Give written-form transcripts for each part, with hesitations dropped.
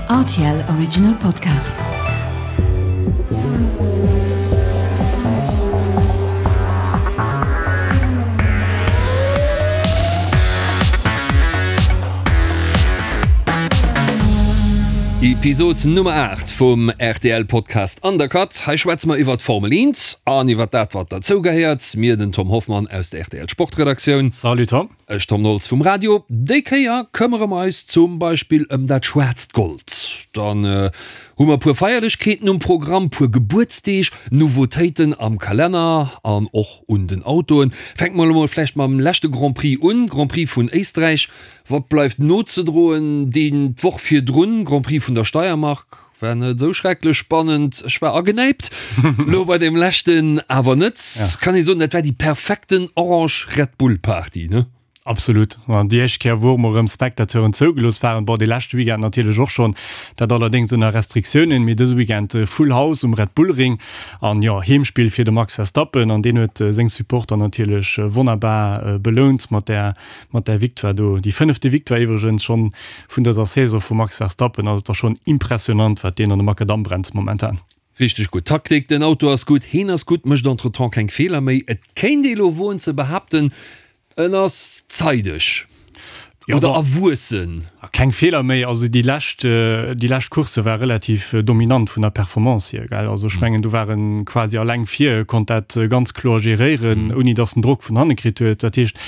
Rtl Original Podcast. Episod Nummer 8 vum rtl Podcast Undercut. Hei schwätze mer iwwert d'Formel 1 an iwwert dat wat derzou gehéiert. Mir, den Tom Hoffmann aus der rtl Sportredaktioun. Salut Tom. Ech Tom Nolz vum Radio. Déi Kéier këmmere mer eis zum Beispill ëm dat schwaarzt Gold. Dann hu mer e puer Feierlechkeeten um Programm, puer Gebuertsdeeg, Nouveautéiten am Kalenner an och un den Autoen. Fänke mer elo mol vläicht mam leschte Grand Prix un, Grand Prix vun Éisträich. Wat bleift nozedroen? Deen d'Woch virdrun, Grand Prix vun der Steiermark. War net esou schrecklech spannend, ech war agenäipt, lo bei deem leschten awer net. Kann ee soen, dat war déi perfekten orange Red Bull Party, ne? Absolut. An déi éischt Kéier, wou och mol erëm Spectateuren zougelooss waren, bon, dee leschte Weekend natierlech och schonn, dat allerdéngs ënner Restriktiounen, mee dëse Weekend Full House um Red Bull Ring an jo, Heemspill fir de Max Verstappen an deen huet seng Supporter natierlech wonnerbar belount mat där mat där Victoire do. Déi fënnefte Victoire iwwregens schonn vun dëser Saison vum Max Verstappen. Also et ass schonn impressionant, wat deen an de Makadamm brennt momentan. Richteg gutt Taktik, den Auto ass gutt, heen ass gutt, mécht entretemps keng Feeler méi. Et kéint ee lo woen ze behaapten, en ass zeideg oder erwuessen. Keng Feeler méi, also déi lescht, déi lescht Coursse war relativ dominant vun der Performance hier, gell. Also ech mengen do war en quasi alleng vir, konnt dat ganz kloer geréieren, ouni datt en Drock vun hanne kritt huet. Dat heescht,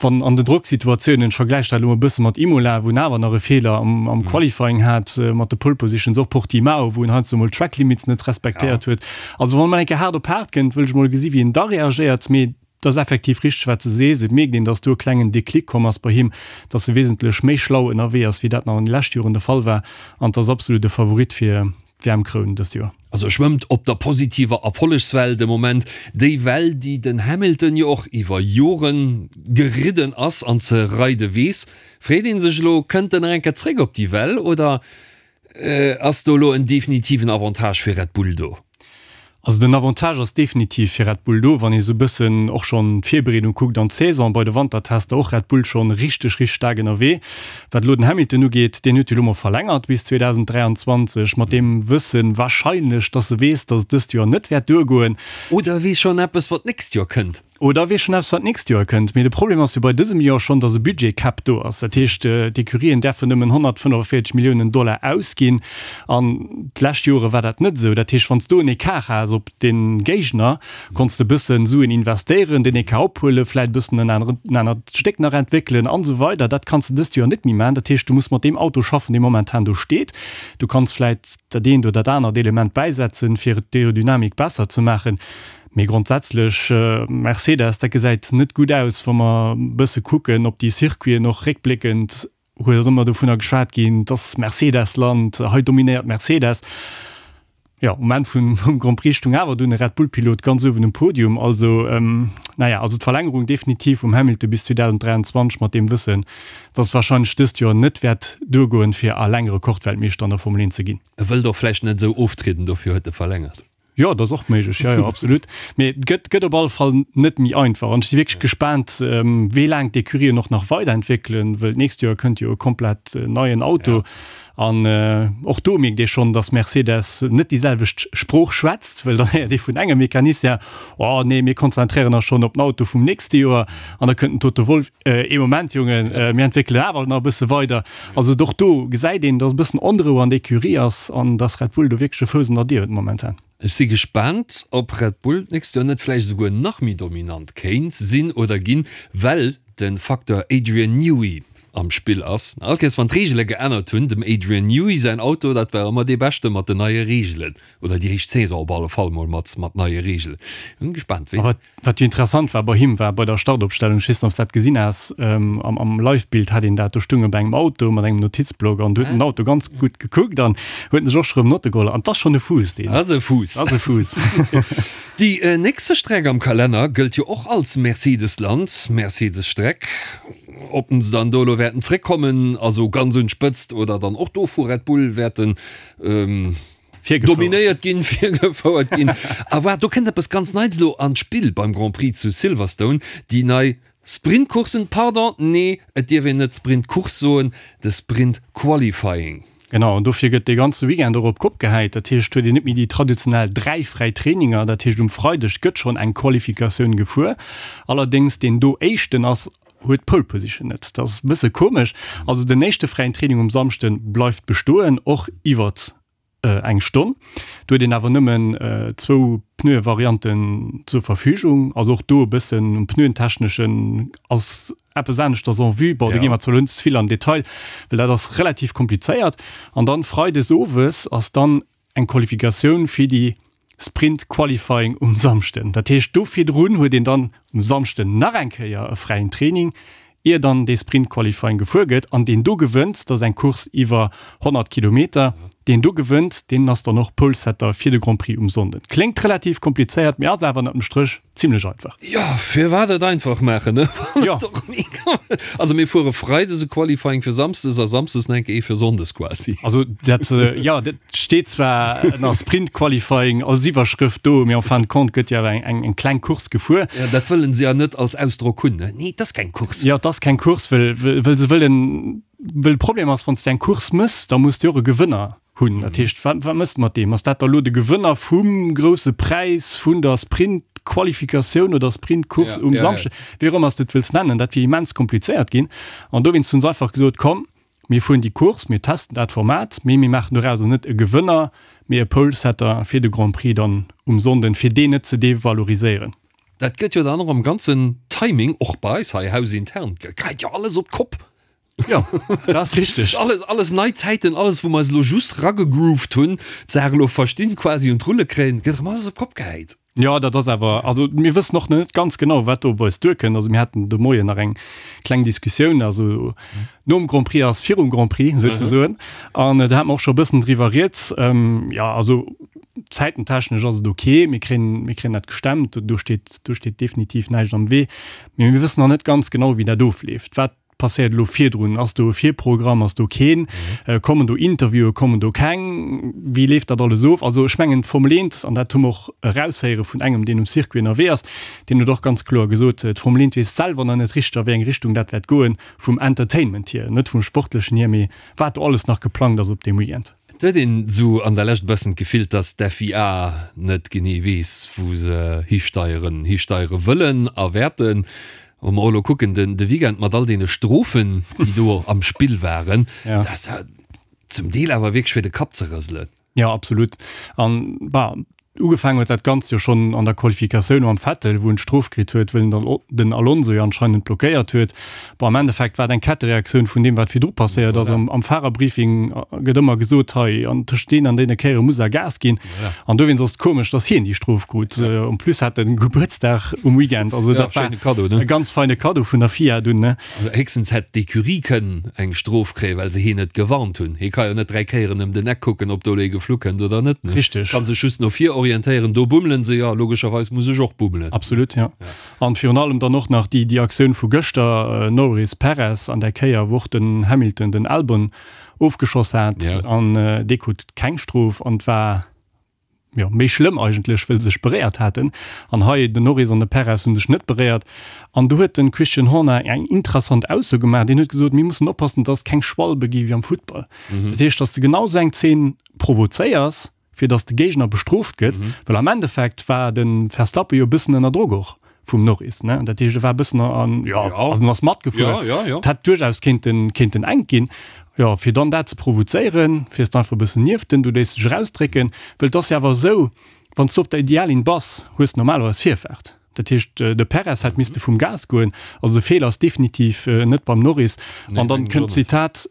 wann an den Drocksituatiounen, ech vergläiche dat elo e bësse mat Imola, wou en awer nach e Feeler am, am Qualifying hat, mat de Pole Positions, och Portimao, wou en heiansdo mol d'Track Limits net respektéiert huet. Also wann emol eng Kéier haart op haart kënnt, wëll ech mol gesi wéi en da reagéiert. Mee et ass effektiv richteg, wat s de sees, et mierkt een, datt do e klengen Déclic komm ass bei him, datt e wesentlech méi schlau ënnerwee ass, wéi dat nach an de leschte Joren de Fall war. An et ass absolut e Favorit fir d'WM-Kroun dëst Joer. Also e schwëmmt op der positiver Erfollegswell de Moment, déi Well, déi den Hamilton jo och iwwer Jore geridden ass an ze reide weess. Freet ee sech elo, kënnt en nach eng Kéier zréck op déi Well oder ass do elo en definitiven Avantage fir Red Bull do? Also den Avantage ass definitiv fir Red Bull do, wann ee sou bëssen och schonn d'Virbereedung kuckt an d'Saison bei de Wantertester, och Red Bull schonn richteg, richteg staark ënnerwee. Wat elo den Hamilton ugeet, deen huet jo elo mol verlängert bis 2023, mat deem Wëssen wahrscheinlech, dass e weess, dass et dëst Joer net wäert duergoen. Oder e weess schonn eppes, wat d'nächst Joer kënnt. Oder e weess schonn eppes, wat d'nächst Joer kënnt. Mee de Problem ass jo bei dësem Joer schonn, dass e Budget-Cap do ass. Dat heescht, d'Ecurien däerfen nëmmen 145 Milliounen Dollar ausginn. An d'lescht Jore war dat net esou. Dat heescht, wann s du en Ecart has op de Géigner, konns de e bëssen Suen investéieren, deen Ecart ophuelen, vläit e bëssen en aneren, en anert Stéck nach entwéckelen an esou weider. Dat kanns de dëst Joer net méi maachen. Dat heescht, du muss mat deem Auto schaffen, dee momentan do steet. Du kanns vläit dat eent oder dat anert Element bäisetzen, fir d'Aerodynamik besser ze maachen. Mee grondsätzlech, Mercedes, dat gesäit net gutt aus, wa mer e bësse kucken op déi Circuiten, och réckbléckend huet ass ëmmer dovunner geschwat ginn, et ass Mercedes-Land, hei dominéiert Mercedes. Jo, um Enn vum Grand Prix stung awer dunn e Red Bull-Pilot ganz uewen um Podium. Also, naja, also d'Verlängerung definitiv vum Hamilton bis 2023 mat deem Wëssen, dass et warscheinlech dëst Joer net wäert duergoen, fir alleng Rekordweltmeeschter an der Formel 1 ze ginn. E wëllt och vläicht net esou oftrieden, dofir huet e verlängert. Jo, dat ass och méiglech, jo, jo, absolut. Mee et gëtt, gëtt op alle Fall net méi einfach. An ech si wierklech gespaant, wéi laang d'Ecurien och nach weiderentwéckelen, wëll d'nächst Joer kënnt jo e komplett neien Auto. An och do mierkt ee schonn, datt Mercedes net déi selwecht Sprooch schwätzt, wëll dann héiert ee vun engem Mecanicien, Oh nee, mir konzentréieren eis schonn op den Auto vum nächste Joer. An da kënnt den Toto Wolff, Ee Moment, Jongen, mir entwéckelen awer nach e bësse weider. Also och do gesäit een, datt e bëssen Onrou an der Ecurie ass an datt Red Bull do wierklech e Fouss an der Dier huet momentan. Ech si gespaant, ob Red Bull d'nächst Joer net vläicht esouguer nach méi dominant kéint sinn oder ginn, well de Facteur Adrian Newey am Spill ass. All Kéiers wann d'Reegele geännert hunn, dem Adrian Newey säin Auto, dat war ëmmer dee beschte mat den neie Reegelen. Oder déi éischt Saison op alle Fall mol mat mat neie Reegelen. Hunn gespaant wéi. Wat jo interessant war bei him war bei der Startopstellung, ech weess net ob s dat gesinn has, am am Live-Bild hat een dat, do stoung e bei engem Auto mat engem Notizblock an do huet en den Auto ganz gutt gekuckt an huet en sech och scho rëm Notte geholl an 't ass schonn e Fuuss deen. Ass e Fuuss. Ass e Fuuss. Déi nächste Streck am Kalenner gëllt jo och als Mercedes-Land, Mercedes-Streck. Ob se dann do elo wäerten zréckkommen, also ganz un d'Spëtzt oder dann och do vu Red Bull wäerten Dominéiert ginn, virgefouert ginn. A waart, do kënnt eppes ganz Neits elo an d'Spill beim Grand Prix zu Silverstone, déi nei Sprintcoursen, pardon, nee, et dierf een net Sprintcourse soen, de Sprint Qualifying. Genau, an dofir gëtt dee ganze Weekend och op d'Kopp gehäit. Dat heescht, huet een net méi déi traditionell 3 fräi Traininger. Dat heescht, um Freideg gëtt schonn eng Qualifikatioun gefuer. Allerdéngs deen do éischten ass, huet d'Pole Position net. Dat ass e bësse komesch. Also den éischte fräien Training um Samschde bleift bestoen, och iwwert eng Stonn. Do huet een awer nëmmen zwou Pneuevarianten zur Verfügung. Also och do e bëssen um Pneuentechneschen ass eppes aneschters en vue. Bon, do gi mer zwar elo net ze vill an den Detail, well dat ass relativ komplizéiert. An dann freides owes ass dann eng Qualifikatioun fir déi Sprint Qualifying um Samschden. Dat heescht, do virdrun huet een dann um Samschden nach eng Kéier e fräien Training, ier dann dee Sprint Qualifying gefuer gëtt. An deen do gewënnt, dat ass eng Course iwwer 100 Kilometer, deen do gewënnt, deen ass dann och Polesetter fir de Grand Prix um Sonnden. Kléngt relativ komplizéiert, mee ass awer ënnert dem Stréch Zimlech einfach. Jo, firwat et einfach maachen, ne? Jo. Also mir fuere Freides e Qualifying fir Samsdes a Samsdes nach eng Kéier ee fir Sonndes quasi. Also dat, jo, dat steet zwar ënner Sprint Qualifying als Iwwerschrëft do, mee en fin de compte gëtt jo awer eng, eng kleng Course gefuer. Jo, dat wëllen se ja net als Ausdrock hunn, ne? Nee, et ass keng Course. Jo, et ass keng Course, well, well se wëllen, well de Problem ass, wann s de eng Course mëss, da muss de och e Gewënner hunn. Dat heescht, wat, wat mëss de mat deem? Ass dat da lo de Gewënner vum grousse Präis vun der Sprint-Qualifikatioun oder Sprint-Course um Samschdeg? Wéi och ëmmer s de et wëlls nennen, dat wier immens komplizéiert ginn. An dowéinst hu se einfach gesot, komm, mir fueren déi Course, mir testen dat Format, mee mir maachen dorauser net e Gewënner, mee e Pole-Setter fir de Grand Prix dann um Sonnden, fir deen net ze devaloriséieren. Dat gëtt jo dann och am ganzen Timing, och bei eis hei hausintern, geheit jo alles op d'Kopp. Jo, dat ass richteg. Alles, alles nei Zäiten, alles wou mer eis elo just ragegrooved hunn, d'Saach elo verstinn, quasi un d'Rulle kréien, gëtt erëm alles op d'Kopp gehäit. Jo, dat ass awer, also mir wëssen och net ganz genau, wat do op eis duerkënnt. Also mir haten de Moien nach eng kleng Diskussioun, also nom Grand Prix ass virum Grand Prix souzesoen. An do hate mer och scho e bëssen driwwer rieds. Jo, also zäitentechnesch ass et ok, mir kréien, mir kréien dat gestemmt, do steet, do steet definitiv näischt am Wee. Mee mir wëssen nach net ganz genau, wéi dat ofleeft. Wat passéiert elo virdrun? Ass do e Virprogramm, ass do keen? Kommen do Interviewen, kommen do keng? Wéi leeft dat alles of? Also ech mengen d'Formel 1, an dat hu mer och eraushéiere vun engem, deen um Circuit ënnerwee ass, deen huet och ganz kloer gesot, d'Formel 1 weess selwer nach net richteg a wéi eng Richtung dat wäert goen, vum Entertainment hier, net vum Sportlechen hier, mee wat do alles nach geplangt ass op deem Weekend. Et huet een esou an der Lescht e bëssen d'Gefill, dass d'FIA net genee weess, wou se histeieren, histeiere wëllen a wäerten. Wa mer och elo kucken, den de Weekend mat all deene Strofen, déi do am Spill waren, dat ass ja zum Deel awer wierklech fir de Kapp ze rëselen. Jo, absolut. An, bah, ugefaangen huet dat Ganzt jo schonn an der Qualifikatioun mam Vettel, wou en d'Strof kritt huet, wëll en den Alonso jo anscheinend blockéiert huet. Bon, am Endeffekt war et eng Kettereaktioun vun deem, wat virdru passéiert ass. Am, am Fahrerbriefing gëtt ëmmer gesot, hei, an tëscht deenen an deene Kéiere muss der Gas ginn. An dowéinst ass et komesch, dass hien déi Strof krut. En plus hat en Gebuertsdag um Weekend. Also dat war e ganz feine Kaddo vun der FIA dunn, ne? Also héchstens hätt d'Ecurie kënnen eng Strof kréien, well se hien net gewarnt hunn. Hie ka jo net 3 Kéieren ëm den Eck kucken, ob do elo ee geflu kënnt oder net, ne? Richteg. Kann sech just no vir orientéieren, do bummelen se jo, logescherweis muss ech och bummelen. Absolut, jo. An virun allem dann och nach déi Aktioun vu gëschter, Norris, Perez an där Kéier, wou och den Hamilton den Albon ofgeschoss hat an dee krut keng Strof an et war jo méi schlëmm eigentlech, wëll se sech beréiert haten. An hei den Norris an de Perez hu sech net beréiert. An do huet de Christian Horner eng interessant Ausso gemaach, deen huet gesot, mir mussen oppassen, dass et keng Schwalbe gi wéi am Futtball. Dat heescht, dass de genau esou eng Zeen provozéiers, fir dass de Géigner bestrooft gëtt, well am Endeffekt war de Verstappen jo e bëssen ënner Drock och vum Norris, ne? Dat heescht, e war e bëssen an, jo, also en ass matgefuer. Ja, ja, ja. Et hätt duerchaus kéinten, kéinten enk ginn. Jo, fir dann dat ze provozéieren, fiers de einfach e bëssen nieft en, du léiss dech erausdrécken, well et ass jo awer esou, wann s du op der Ideallinn bass, hues de normalerweis Virfaart. Dat heescht, de Perez hätt misste vum Gas goen. Also de Feeler ass definitiv net beim Norris. An dann kënnt d'Zitat,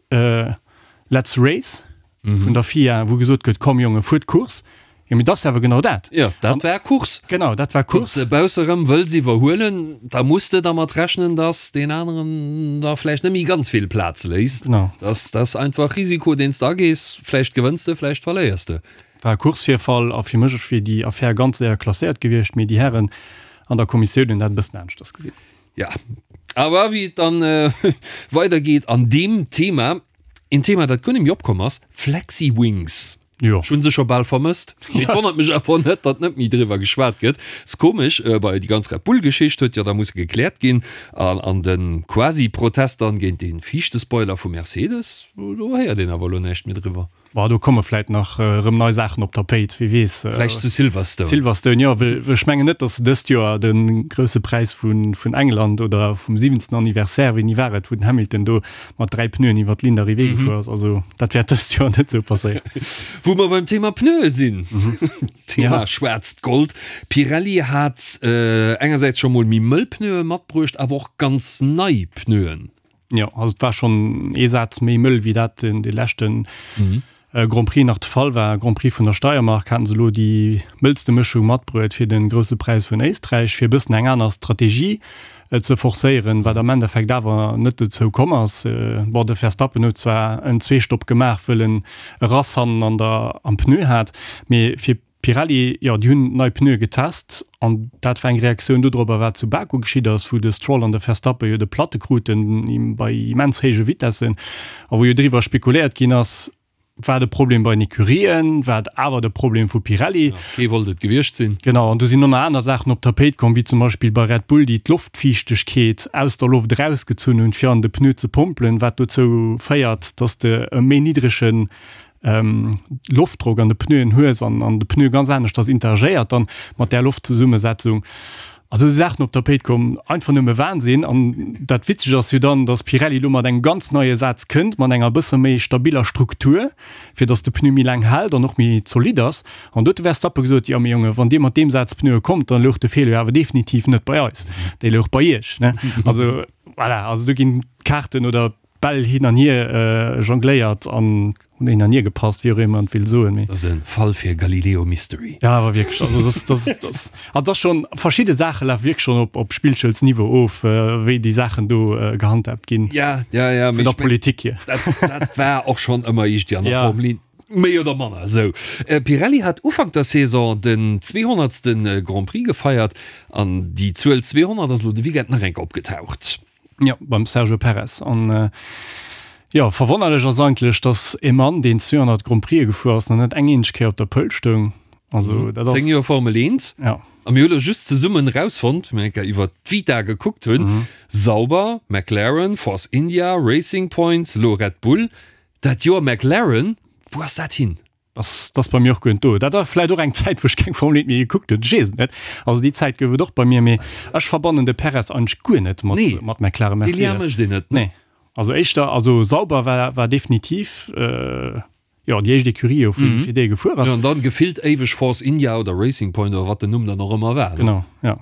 Let's race. vun der FIA, wou gesot gëtt, komm Jongen, fuert Course. Jo, mee dat ass awer genau dat. Jo, dat war Course. Genau, dat war Course. Wann s de bausse rëm wëlls iwwerhuelen, da muss de dermat rechnen, dass deen aneren der vläicht net méi ganz vill Plaz léisst. Genau. Dat ass einfach Risiko, deen s de agees. Vläicht gewënns de, vläicht verléiers de. War e Coursevirfall a fir mech wier déi Affär ganz séier klasséiert gewiescht, mee déi Hären an der Kommissioun hunn dat e bëssen aneschters gesinn. Ja, awer wéi et dann weidergeet an deem Thema, Een Thema, dat guer net méi opkomm ass, Flexiwings. Jo. Ech hunn se scho bal vermësst. Mee et wonnert mech awer net, datt net méi driwwer geschwat gëtt. Ass komesch, bei déi ganz Red Bull-Geschicht huet jo da musse gekläert ginn. An an de Quasi-Protest dann géint dee viischte Spoiler vu Mercedes, do héiert een awer elo näischt méi driwwer. Bon, do komme vläit nach erëm nei Saachen op d'Tapéit, wie weess. Vläicht zu Silverstone. Silverstone, jo, well ech mengen net, datt se dëst Joer de Grousse Präis vun England oder vum siwenzten Anniversaire, wéini war et, wou den Hamilton do mat 3 Pneuen iwwer d'Ligne d'arrivée gefuer ass. Also dat wäert dëst Joer net esou passéieren. Wou mer beim Thema Pneue sinn, Thema schwaarzt Gold, Pirelli hat engersäits scho mol méi mëll Pneue matbruecht, awer och ganz nei Pneuen. Jo, also et war schonn ee Saz méi mëll, wéi dat den dee leschte Grand Prix nach de Fall war. Grand Prix vun der Steiermark haten se elo déi mëllste Mëschung matbruet fir de Grousse Präis vun Éisträich, fir e bëssen eng aner Strategie ze forcéieren, wat am Endeffekt awer net dozou komm ass. Bon, de Verstappen huet zwar en Zweestopp gemaach, wëll en e Rass hannen an der am Pneu hat, mee fir Pirelli, jo, déi hunn nei Pneue getest an dat war eng Reaktioun dodropper, wat zu Baku geschitt ass, wou de Stroll an de Verstappen jo de Platte kruten bei immens héije Vitessen a wou jo driwwer spekuléiert ginn ass, war de Problem bei den Ecurien, war et awer de Problem vu Pirelli? Jo, kee wollt et gewiescht sinn. Genau, an do sinn och nach aner Saachen op d'Tapéit komm, wéi zum Beispill bei Red Bull, déi d'Loftfiichtegkeet aus der Loft erausgezunn hunn, fir an de Pneu ze pompelen, wat dozou féiert, dass de e méi niddregen Loftdrock an de Pneuen hues an an de Pneu ganz aneschters interagéiert dann mat där Loftzesummesetzung. Also esou Saachen op d'Tapéit komm, einfach nëmme Wahnsinn. An dat Witzegt ass jo dann, dass Pirelli elo mat engem ganz neie Saz kënnt, mat enger bësse méi stabiller Struktur, fir dass de Pneu méi laang hält an och méi zolidd ass. An do huet de Verstappen gesot, jo mee Jonge, wann Dir mat deem Saz Pneue kommt, dann louch de Feeler jo awer definitiv net bei eis, dee louch bei Iech, ne? Also voilà, also do ginn d'Kaarten oder Bäll hin an hier jongléiert an hunn hin an hier gepasst, wéi och ëmmer een et will soen, mee. Dat ass e Fall fir Galileo Mystery. Ja, awer wierklech, also dass, dass, dass, also dass schonn, verschidde Saache lafe wierklech schonn op, op Spillschoulsniveau of, wéi déi Saachen do gehandhaabt ginn. Ja, ja, ja, vun der Politik hier. Dat, dat war och schonn ëmmer iergendwéi an der Formel 1. Méi oder manner esou. Pirelli hat Ufank der Saison den zweehonnertste Grand Prix gefeiert an déi Zuel 200 ass elo de Weekend nach eng Kéier opgetaucht. Jo, beim Sergio Perez. An jo, verwonnerlech ass eigentlech, datt e Mann, deen 200 Grand Prixë gefuer ass, nach net eng eenzeg Kéier op der Pole stoung. Also dat ass. 10 Joer Formel 1. Ja. A mir hu lo just zesummen erausfonnt, wéi mir eng Kéier iwwer d'Vita gekuckt hunn, Sauber, McLaren, Force India, Racing Point, lo Red Bull. Dat Joer McLaren, wou ass dat hin? Ass dass bei mir och guer net do. Dat war vläit och eng Zäit, wou ech keng Formel 1 méi gekuckt hunn, ech weess et net. Also déi Zäit gouf et och bei mir, mee ech verbannen de Perez eigentlech guer net mat Nee, mat McLaren dee Lien Mercedes. mécht een net, ne? Nee, also éischter, also Sauber war war definitiv jo déi éischt Ecurie jo fir fir déi e gefuer ass. Jo, an dann gefillt éiweg Force India oder Racing Point oder wat den Numm dann och ëmmer war, ne? Genau, ja.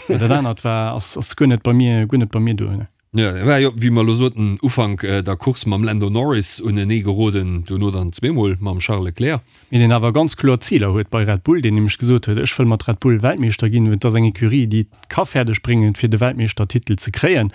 Dat anert war ass ass guer net bei mir guer net bei mir do, ne. Jo, e war jo, wéi mer elo soten, Ufank der Course mam Lando Norris unenee geroden, duerno dann zweemol mam Charles Leclerc. Mee deen awer ganz kloer Ziler huet bei Red Bull, deen nämlech gesot huet, ech wëll mat Red Bull Weltmeeschter ginn, et ass eng Ecurie, déi et ka fäerdeg bréngen, fir de Weltmeeschtertitel ze kréien.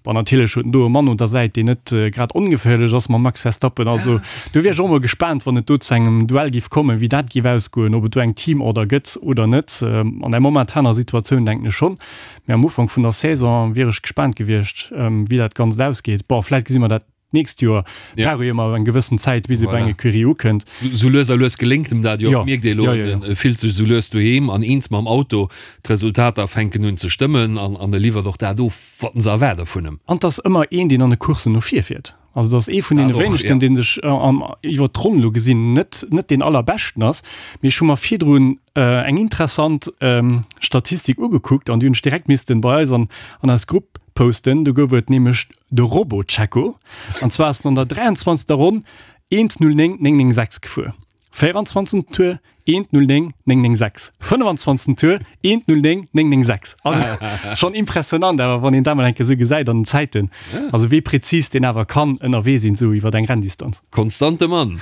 Bon, natierlech huet en do e Mann un der Säit, deen net grad ongeféierlech ass mam Max Verstappen. Also do wier ech och mol gespaant, wann et do zu engem Duell géif kommen, wéi dat géif ausgoen, ob et do eng Teamorder gëtt oder net. An der momentaner Situatioun denken ech schonn. Mee am Ufank vun der Saison wier ech gespaant gewiescht, wéi dat Ganzt ausgeet. Bon, vläit gesi mer dat d'nächst Joer. Ja. Brauch jo ëmmer eng gewëssen Zäit, bis ee bei eng Ecurie ukënnt. Sou lues a lues geléngt em dat jo och, Ja. mierkt ee elo. Ja, ja, ja. E fillt sech sou lues doheem an eens mam Auto. D'Resultater fänken un ze stëmmen an an e liwwert och dat of, wat se erwaarde vun em. An 't ass ëmmer een, deen an de Courssen no vir fiert. Also dat ass ee vun deene wéinegsten, dee sech iwwer d'Ronn elo gesinn net net deen allerbeschten ass. Mee ech hu mer virdrun eng interessant Statistik ugekuckt an déi hunn ech direkt missten bei eis an an eis Grupp posten. Do gouf et nämlech de Robo-Checo. An zwar ass en an der 23. Ronn 1:09,996 gefuer. 24. Tour 1:09 996 25. Tour 1:09 996 Also schonn impressionant awer wann een dat mol eng Kéier esou gesäit an den Zäiten. Also wéi präzis deen awer kann ënnerwee sinn esou iwwer eng Renndistanz. Konstante Mann.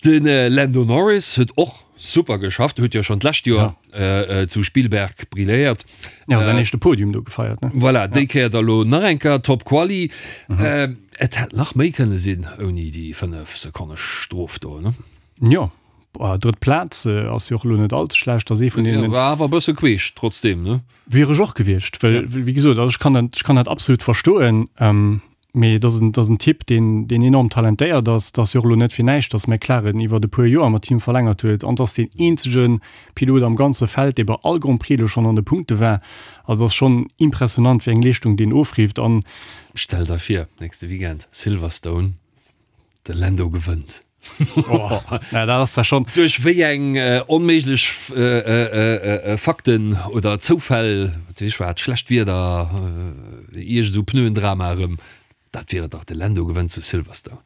De Lando Norris huet och super geschafft, huet jo schonn d'lescht Joer zu Spielberg brilléiert. Ja, säin éischte Podium do gefeiert, ne? Voilà, déi Kéier da lo nach eng Kéier Top Quali. Et hätt nach méi kënne sinn ouni déi 5 Sekonne Strof do, ne? Jo, drëtt Plaz ass jo och elo net all ze schlecht, ass ee vun deenen. War awer e bësse queesch trotzdeem, ne? Wier ech och gewiescht, well wéi gesot, also ech kann dat, ech kann dat absolut verstoen. Mee et ass en, et ass en Typ, deen, deen enorm talentéiert ass. Et ass jo och elo net fir näischt, datt McLaren iwwert e puer Joer mat him verlängert huet. An et ass deen eenzege Pilot am ganze Feld, dee bei all Grand Prix elo schonn an de Punkte war. Also et ass schonn impressionant, wéi eng Leeschtung deen ofrifft. An. Stell der vir, nächste Weekend Silverstone, de Lando gewënnt. Oh, na, dat ass da schon. Duerch wéi eng onméiglech Fakten oder Zoufäll, wat weess ech wat, schlecht Wieder, iergend esou Pneuendrama erëm, dat wier et dach, de Lando gewënnt zu Silverstone.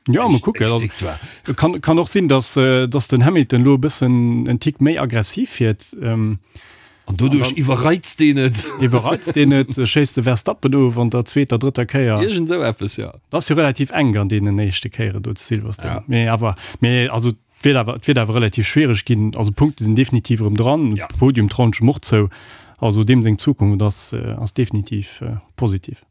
Ja, mol kucken. Éischt Also, Victoire. kann, kann och sinn, dass, dass den Hamilton elo e bëssen en Tick méi aggressiv fiert. An doduerch iwwerreizt deen et. Iwwerreizt deen et, schéisst de Verstappen of an der zweeter, drëtter Kéier. Iergend esou eppes, jo. Dat ass jo relativ enk an deenen éischte Kéieren do zu Silverstone. Ja. Mee awer, mee also et wiert awer, et wiert awer relativ schwiereg ginn. Also Punkte sinn definitiv erëm dran. Ja. Podium trauen ech em och zou. Also deem seng Zukunft ass, ass definitiv positiv.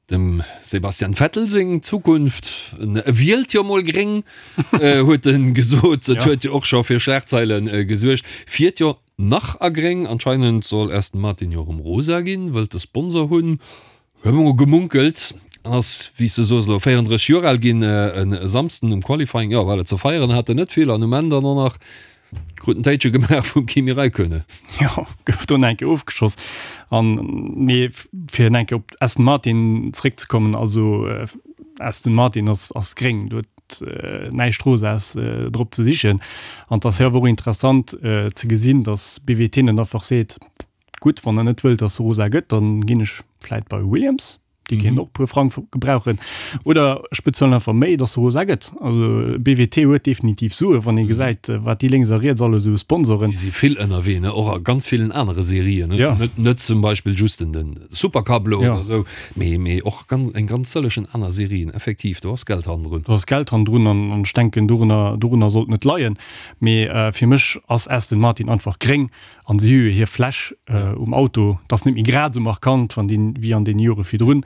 Dem Sebastian Vettel seng Zukunft, en wielt jo mol gréng, huet en gesot. Et huet jo och scho fir Schlagzeile gesuergt. Fiert jo nach a gréng. Anscheinend soll Aston Martin jo erëm rosa ginn, wëllt e Sponsor hunn, hu mer mol gemunkelt. Ass, wéi s de soos, elo 34 Joer al ginn e Samsden um Qualifying. Jo, well et ze feieren hat en net vill an um Enn dann och nach Krut en Téitche gemaach vum Kimi Räikkönen. Jo, gouf do nach eng Kéier ofgeschoss. An nee, fir nach eng Kéier op Aston Martin zréckzekommen, also Aston Martin ass, ass gréng, do huet näischt Rosaes drop ze sichen. An et ass jo awer och interessant ze gesinn, datt BWT net einfach seet, gutt, wann der net wëllt, datt se rosa gëtt, dann ginn ech vläit bei Williams. Déi kéinten och e puer Frang gebrauchen. Oder ech bezuelen einfach méi, dass se rosa gëtt. Also BWT huet definitiv Sue, wann ee gesäit, wat déi lénks a riets alles esou sponsoren. Déi si vill ënnerwee, ne? Och a ganz villen anere Serien, ne? Ja. Net, net zum Beispill just den, den Supercup elo Ja. oder esou, mee, mee och ganz, eng ganz sëllegen aner Serien. Effektiv, do ass Geld hannendrun. Do ass Geld hannendrun an, an ech denken, dorunner, dorunner sollt net leien. Mee fir mech ass Aston Martin einfach gréng. An si hu jo hir Fläsch um Auto, dat ass net méi grad esou markant wann déi wéi an deene Jore virdrun,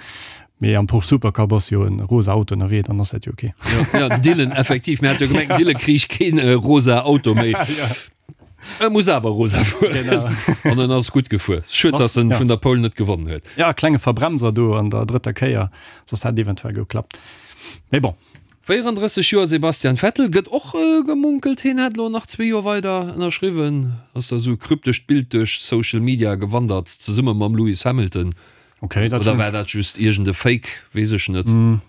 mee am Porsche Supercup ass jo e rosa Auto ënnerwee, dann ass dat jo ok. Jo, jo, den Dylan, effektiv, mir hat jo gemengt, den Dylan kriich keen rosa Auto méi. E muss awer rosa fueren. Genau. An en ass gutt gefuer. Schued, Ass, datt en ja. vun der Pole net gewonnen huet. Ja, klenge Verbremser do an der drëtter Kéier, soss hätt eventuell geklappt. Mee bon. 34 Joer Sebastian Vettel, gëtt och gemunkelt, hien hätt elo nach zwee Joer weider ënnerschriwwen. Ass da sou e kryptescht Bild duerch Social Media gewandert, zesumme mam Lewis Hamilton. Okay, dat Oder war dat just iergend e Fake, weess ech net.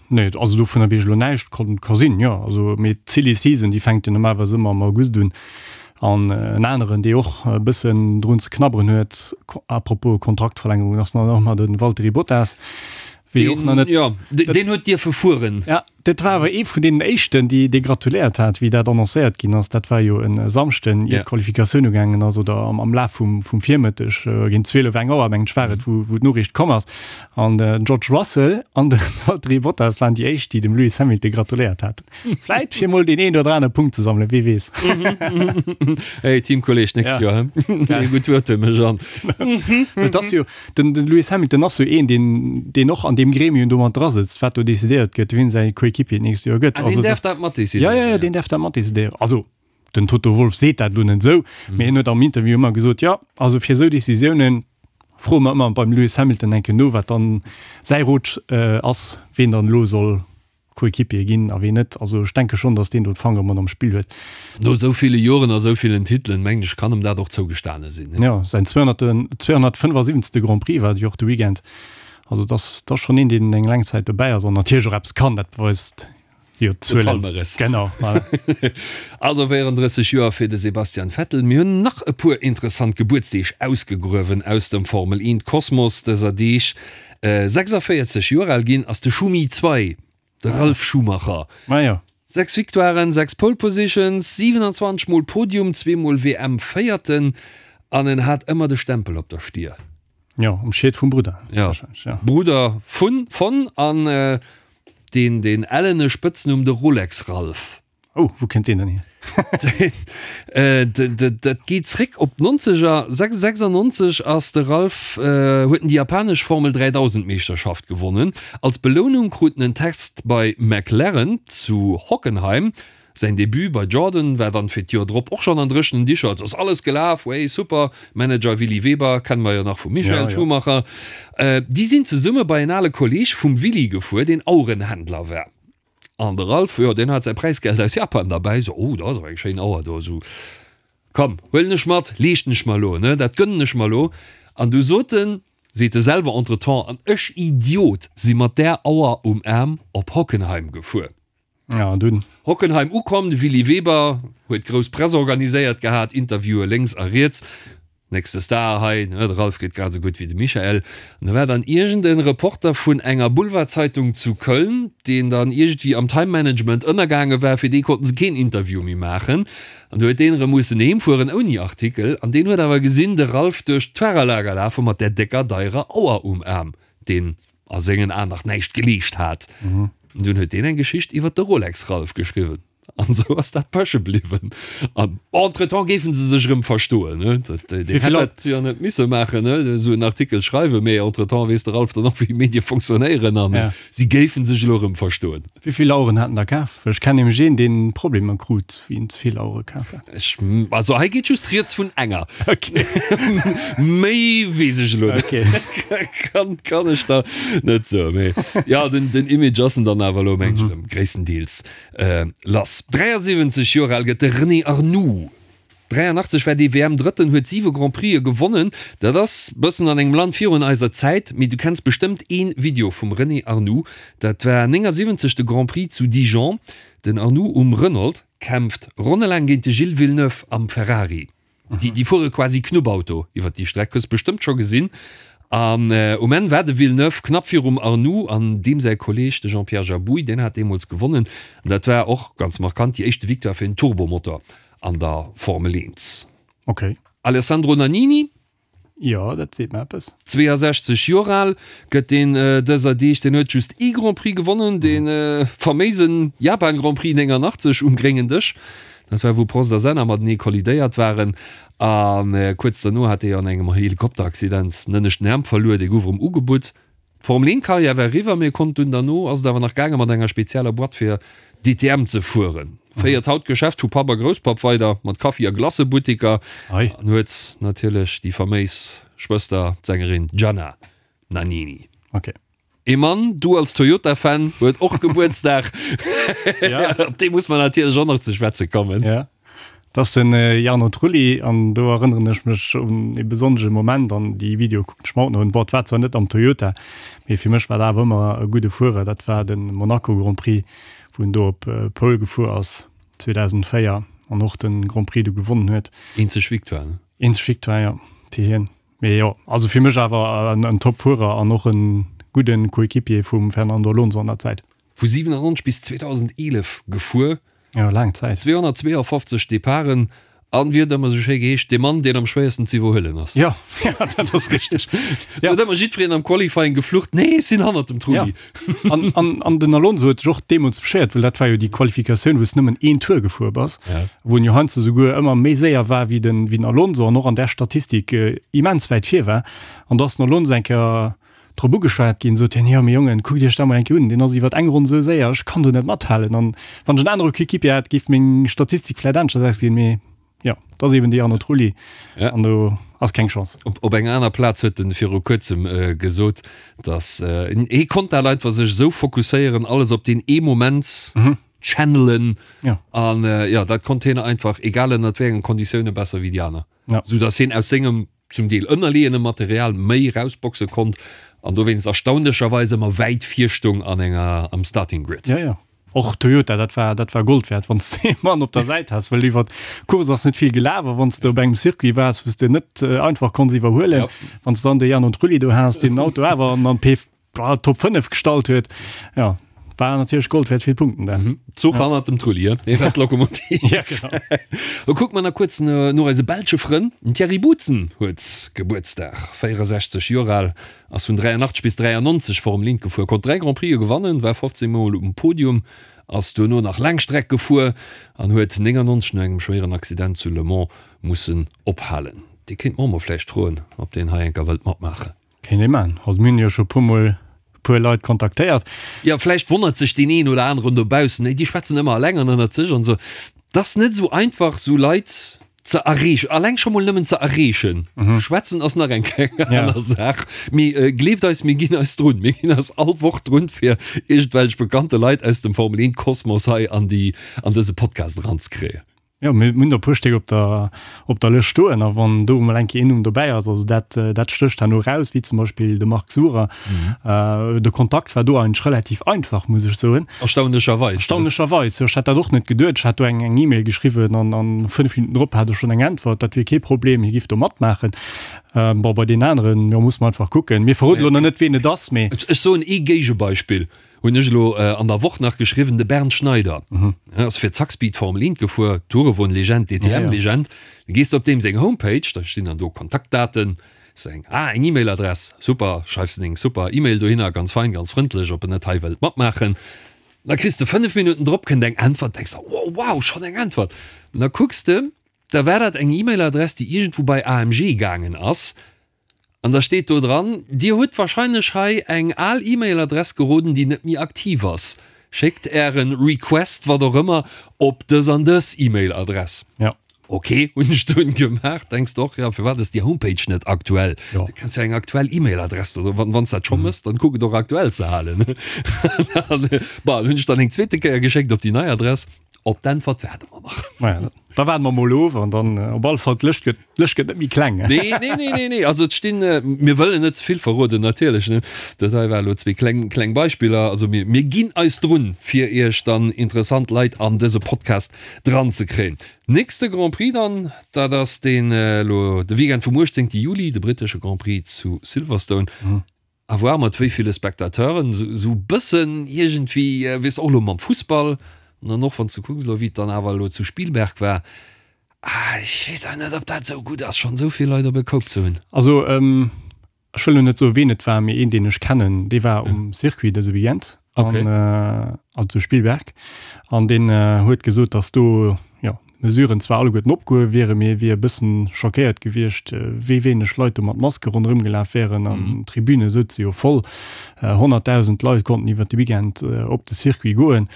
Nee, also dovunner weess ech elo näischt. Kann, ka sinn, jo. Also, mee d'Silly Season, déi fänkt jo normalerweis ëmmer am August un. An en aneren, dee och e bëssen drun ze knabberen huet, à propos Kontraktverlängerung, ass dann och nach de Valtteri Bottas. Wéi och nach net. Jo, deen huet dierfe fueren. Ja, dat war awer ee vun deenen éischten, déi dee gratuléiert hat, wéi dat annoncéiert ginn ass. Dat war jo e Samschden, ier d'Qualifikatioun ugaangen ass, oder am, am Laf vum, vum Virmëtteg, géint 12, eng Auer, mengen ech, war et, wou, wou d'Noriicht komm ass. An den George Russell an de Valtteri Bottas waren déi éischt, déi dem Lewis Hamilton gratuléiert haten. Vläit fir mol deen een oder anere Punkt ze sammelen, wie weess. Hey, Teamkolleg, nächst Ja. Joer, he? Gutt Wuert huet mech an. Et ass jo, Den den Lewis Hamilton ass jo een, deen deen och an deem Gremium do mat dra sëtzt, wat do decidéiert gëtt, wien säi Coéquipier d'nächst Joer gëtt. Ah, deen däerf dat mat decidéieren? Ja, ja, ja, deen däerf dat mat decidéieren. Also, den Toto Wolff seet dat elo net esou, mee hien huet am Interview ëmmer gesot, jo, also fir esou Decisiounen froe mer ëmmer beim Lewis Hamilton eng Kéier no, wat dann säi Rot ass, wien dann elo soll Coéquipier ginn a ween net. Also ech denke schonn, datt deen do d'Fangere mat am Spill huet. No esou ville Joren a esou villen Titelen, mengen ech, kann em dat och zougestane sinn. Jo, säin 275. Grand Prix war et jo och de Weekend. Also et ass, et ass schonn een, deen eng laang Zäit dobäi ass an natierlech och eppes kann. Dat beweist jo De d'Zuelen. Palmarès. Genau, voilà. Also 34 Joer fir de Sebastian Vettel. Mir hunn nach e puer interessant Gebuertsdeeg ausgegruewen aus dem Formel 1 Kosmos dëser Deeg. 46 Joer al ginn ass de Schumi 2, de Ralf Schumacher. Ah jo. 6 Victoiren, 6 Pole Positions, 27 mol Podium, zweemol WM Véierten an en hat ëmmer de Stempel op der Stier. Jo, um Schiet vum Brudder. Jo, ja. Brudder vun, von an deen, deen ellene Spëtznumm de Rolex Ralf. Oh, wou kënnt deen dann hier? Dat geet zréck op d'Nonzeger. 96 ass de Ralf, huet en déi japanesch Formel 3000 Meeschterschaft gewonnen. Als Belounung krut en en Test bei McLaren zu Hockenheim. Säin Debut bei Jordan war dann fir d'Joer drop och schonn an dréchenen Dicher. Et ass alles gelaf, wey super. Manager Willy Weber kenne mer jo nach vum Michael Schumacher. Déi sinn zesumme bei en ale Kolleeg vum Willy gefuer, deen Auerenhändler war. An de Ralph, jo, deen hat säi Präisgeld aus Japan derbäi, sou, oh, dat ass awer eng schéin Auer do, sou, komm, huelen ech mat, leeschten ech mer elo, ne, dat gönnen ech mer elo. An du sot en, seet e selwer entretemps, an ech Idiot si mat där Auer um Aarm op Hockenheim gefuer. Ja, an dunn? Hockenheim ukomm, de Willy Weber huet grouss Press organiséiert gehat, Interviewe lénks a riets. Nächste Star hei, ne, de Ralf geet grad esou gutt wéi de Michael. An da war dann iergend en Reporter vun enger Boulevardzeitung zu Köln, deen dann iergendwéi am Time Management ënnergaange war, fir dee konnten se keen Interview méi maachen. An du huet deen erëm mussen heem fueren ouni Artikel. An deen huet awer gesinn, de Ralf duerch d'Fahrerlager lafe mat där décker, deierer Auer um Aarm, deen a sengen Aen nach näischt geleescht hat. An dunn huet deen eng Geschicht iwwer de Rolex Ralf geschriwwen. An esou ass dat peche bliwwen. An entretemps géifen se sech erëm verstoen. Ne? Dat, deen Wéi hätt vill dat jo net misse maachen, ne? esou en Artikel schreiwen, mee entretemps weess de Ralf dann och, wéi Medie fonctionnéieren an Ja. si géifen sech elo erëm verstoen. Wéi vill Aueren hat en da kaf? Well ech kennen nämlech een, deen Problemer krut, wéi en ze vill Auere kaf hat. Ech, also hei geet just rieds vun enger. Okay. Méi weess ech elo net. Okay. Kann, kann ech der net soen. Mee ja, den, den Image ass en dann awer elo, meng ech, erëm gréisstendeels lass. 73 Joer al gëtt de René Arnoux. 83 war dee WM-Drëtten, huet siwe Grand Prixë gewonnen. Dat ass bëssen an engem Land virun eiser Zäit, mee du kenns bestëmmt ee Video vum René Arnoux. Dat war 79 de Grand Prix zu Dijon. Den Arnoux um Renault kämpft ronnelaang géint de Gilles Villeneuve am Ferrari. Déi, déi fuere quasi Knubbauto iwwer déi Streck, hues bestëmmt scho gesinn. An um Enn war de Villeneuve knapp virum Arnoux an deem säi Kolleeg, de Jean-Pierre Jabouille, deen hat deemools gewonnen. An dat war och ganz markant déi éischte Victoire fir en Turbomotor an der Formel 1. Okay. Alessandro Nannini. Jo, dat seet mer eppes. 62 Joer al gëtt deen dëser Deeg. Deen huet just ee Grand Prix gewonnen, dee faméise Japan Grand Prix 89 um gréngen Dësch. Dat war wou Prost a Senna matenee kollidéiert waren. A kuerz derno hat dee an engem Helikopteraccident den ënneschten Aarm verluer. Dee gouf erëm ugebutt. D'Formel 1 Karriär war eriwwer, mee e konnt dunn derno ass et awer nach gaange mat enger spezieller Boîte fir DTM ze fueren. Féiert haut d'Geschäft vu Papp a Grousspapp weider mat Kaffi a Glacëbuttiker an huet natierlech déi faméis Schwëster, d'Sängerin Gianna Nannini. Ok. Ee Mann, du als Toyota-Fan, huet och Gebuertsdag. Op dee muss mer natierlech och nach ze schwätze kommen. Dat ass den Jarno Trulli an do erënneren ech mech un ee besonnesche Moment an déi Videoe kucken ech mer haut nach un. Bon, et war zwar net am Toyota, mee fir mech war dat awer ëmmer e gudde Fuerer. Dat war de Monaco Grand Prix, wou en do op Pole gefuer ass 2004 an och de Grand Prix du gewonnen huet. Eenzeg Victoire, ne? Eenzeg Victoire, jo, fir hien. Mee jo, also fir mech awer en Top-Fuerer an och e gudde Coéquipier vum Fernando Alonso an der Zäit. Vu 97 bis 2011 gefuer. Jo, laang Zäit. 252 Departen an, wéi huet ëmmer esou schéi geheescht, dee Mann, deen am schwéiersten ze iwwerhuelen ass. Jo, jo, dat ass richteg. Do huet ëmmer jiddwereen am Qualifying geflucht, Nee, ech sinn hannert dem Trulli. Ja. An, an, an den Alonso huet sech och deemools beschéiert, well dat war jo déi Qualifikatioun, wou s nëmmen een Tour gefuer bass, Ja. wou en jo heiansdo souguer ëmmer méi séier war wéi den, wéi den Alonso an och an där Statistik immens wäit vir war. An da ass den Alonso eng Kéier drop ugeschwat ginn, sot hien, Jo, mee Jongen, kuckt Iech dat mol eng Kéier un, deen ass iwwer eng Ronn esou séier, ech kann do net mathalen. An wann ech en anere Coéquipier hätt, géif meng Statistik vläit aneschters ausgesinn. Mee jo, et ass eben de Jarno Trulli Ja. an do ass keng Chance. Op, op enger aner Plaz huet en viru kuerzem gesot, datt hie konnt dat einfach sech esou fokusséieren, alles op deen ee Moment channelen. Ja. An jo, dat konnt hien einfach, egal ënnert wéi engen Konditioune, besser wéi déi aner. Ja. Sou datt hien aus sengem zum Deel ënnerleeëne Material méi erausboxe konnt an dowéinst erstaunlecherweis ëmmer wäit vir stoung an enger am Starting Grid. Jo, jo. Och Toyota, dat war, dat war Gold wäert, wann s de ee Mann op der Säit has, well iwwer d'Course ass net vill gelaf a wann s de op engem Circuit waars, wou s de net einfach konns iwwerhuelen, wann s de dann de Jarno Trulli do has, deen den Auto awer an an d'P Top 5 gestallt huet, jo, war natierlech Gold wäert, vill Punkten da. Mhm. Zuch ja. hannert dem Trulli, dee war d'Lokomotiv. ja, genau. Da kucke mer nach kuerz no eise belsche Frënn. Den Thierry Boutsen huet Gebuertsdag, 64 Joer al, ass vun 83 bis 93 Formel 1 gefuer, konnt 3 Grand Prixë gewannen, war 15 Mol um Podium, ass duerno nach Laangstreck gefuer an huet 99 no engem schwéieren Accident zu Le Mans mussen ophalen. Dee kéint mer och mol vläicht froen, ob deen hei enker wëllt matmaachen. Kéint ee man. Also mir hunn jo scho puer mol puer Leit kontaktéiert. Jo, vläicht wonnert sech deen een oder aneren dobaussen, déi schwätzen ëmmer eleng an ënnert sech an esou. Et ass net esou einfach, esou Leit ze erreechen, alleng scho mol nëmmen ze erreechen. Schwätzen ass nach eng kleng aner Saach. Mee gleeft eis, mir ginn eis drun. Mir ginn eis all Woch drun, fir iergendwelch bekannte Leit aus dem Formel-Eent-Kosmos hei an déi, an dëse Podcast eranzekréien. Jo, mir hunn der e puer Stéck op der, op der Lëscht stoen a wann do emol eng Kéier een Numm dobäi ass, also dat, dat stécht herno eraus, wéi zum Beispill de Marc Surer. De Kontakt war do eigentlech relativ einfach, muss ech soen. Erstaunlecherweis. Erstaunlecherweis, jo. Ech hat dat och net geduet. Ech hat do eng, eng E-Mail geschriwwen an a 5 Minutten drop hat ech schonn eng Äntwert, dat wier kee Problem, hie giff do matmaachen. Bon, bei deenen aneren, jo, muss mer einfach kucken. Mir verroden elo nach net, ween et ass, mee. Ech soen ee Géigebeispill. Hunn ech elo an der Woch nach geschriwwen, de Bernd Schneider ass fir Zakspeed Formel 1 gefuer, Tourewoen-Legend, DTM-Legend. Da gees de op deem seng Homepage, da stinn dann do Kontaktdaten, seng, ah, eng E-Mail-Adress, super, schreifs de deng super E-Mail dohinner, ganz fein, ganz frëndlech, ob en net hei wëllt matmaachen. Da kriss de 5 Minutten drop kënnt eng Äntwert, denks der, wow, wow, schonn eng Äntwert. An da kucks de, da war dat eng E-Mail-Adress, déi iergendwou bei AMG gaangen ass. An da steet do dran, Dir hutt wahrscheinlech hei eng al E-Mail-Adress geroden, déi net méi aktiv ass. Schéckt Ären Request, wat och ëmmer, op dës an dës E-Mail-Adress. Ja. Ok, hunn ech dunn gemaach. Denks de och, jo, firwat ass déi Homepage net aktuell? Jo. Du kanns jo eng aktuell E-Mail-Adress do, wann s dat scho mëss, dann kuck et och aktuell ze halen. An, bon, hunn ech dann eng zweete Kéier geschéckt op déi nei Adress. Op d'Äntwert waarde mer nach. Naja, da waarde mer mol of an dann op alle Fall d'Lëscht gëtt, d'Lëscht gëtt net méi kleng. Nee, nee, nee, nee, nee. Also et stinn, mir wëllen net ze vill verroden natierlech, ne. Dat hei war elo zwee kleng, kleng Beispiller. Also mir, mir ginn eis drun, fir Iech dann interessant Leit an dëse Podcast dran ze kréien. Nächste Grand Prix dann, dat ass deen elo de Weekend vum 18 Juli, de brittesche Grand Prix zu Silverstone. À voir mat wéi ville Spectateuren, esou bëssen iergendwéi, weess och elo mam Fussball, an dann och wann s de kucks elo wéi et dann awer elo zu Spielberg war, ah ech weess awer net ob dat esou gutt ass schonn esou vill Leit op e Koup ze hunn. Also ech wëll elo net soe ween et war, mee een deen ech kennen, dee war um Circuit dëse Weekend an also zu Spielberg an deen huet gesot, datt do jo Mesuren zwar alleguerten opgehuewe wieren, mee e wier e bëssen schockéiert gewiescht, wéi wéineg Leit do mat Maske ronderëm gelaf wären an d'Tribüne souze jo voll. 100.000 Leit konnten iwwer de Weekend op de Circuit goen.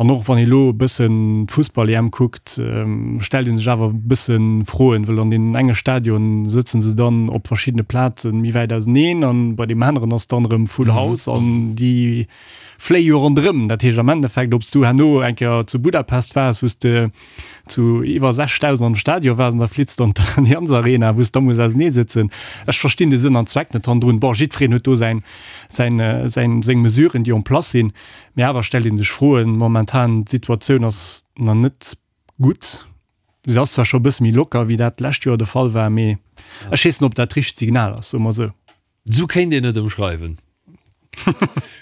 An och wann ee lo e bëssen d'Fussball-EM kuckt, stellt ee sech awer e bësse Froen, wëll an deenen enge Stadion sëtze se dann op verschiddene Plaze méi wäit auseneen an bei deem aneren ass dann erëm full house an déi fléie jo ronderëm. Dat heescht am Endeffekt, ob s du herno eng Kéier zu Budapest waars, wou s de zu iwwer 6.000 am Stadion waars an da flitts de an d'Allianz Arena, wou s da muss ausenee sëtzen. Ech verstinn de Sënn an Zweck net hannendrun. Bon, jiddwereen huet do säin, säin, säin, seng Mesuren, déi en place sinn, mee awer stellt ee sech Froen. Momentan, d'Situatioun ass nach net gutt. Se ass zwar scho e bësse méi locker, wéi dat d'lescht Joer de Fall war, mee ech weess net, ob dat d'richtegt Signal ass, soe mer esou. Sou kéint een et ëmschreiwen.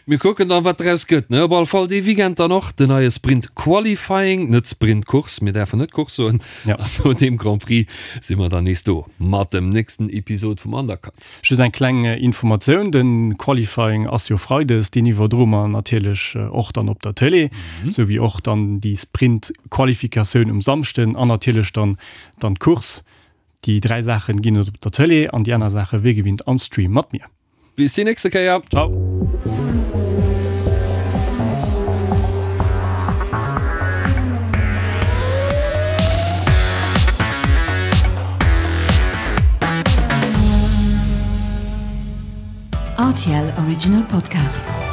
Mir kucken dann, wat draus gëtt, ne? Op alle Fall dee Weekend dann och den neie Sprint Qualifying, net Sprint Course, mir däerfen net Course soen. Ja. An no deem Grand Prix si mer dann nees do mat dem nächsten Episod vum Undercut. Just eng kleng Informatioun, de Qualifying ass jo Freides, deen iwwerdroe mer natierlech och dann op der Tëlee, sou wéi och dann déi Sprint Qualifikatioun um Samschden an natierlech dann dann d'Course. Déi 3 Saachen ginn et op der Tëlee an déi aner Saache wéi gewinnt am Stream mat mir. Bis déi nächste Kéier. Ciao. RTL Original Podcast.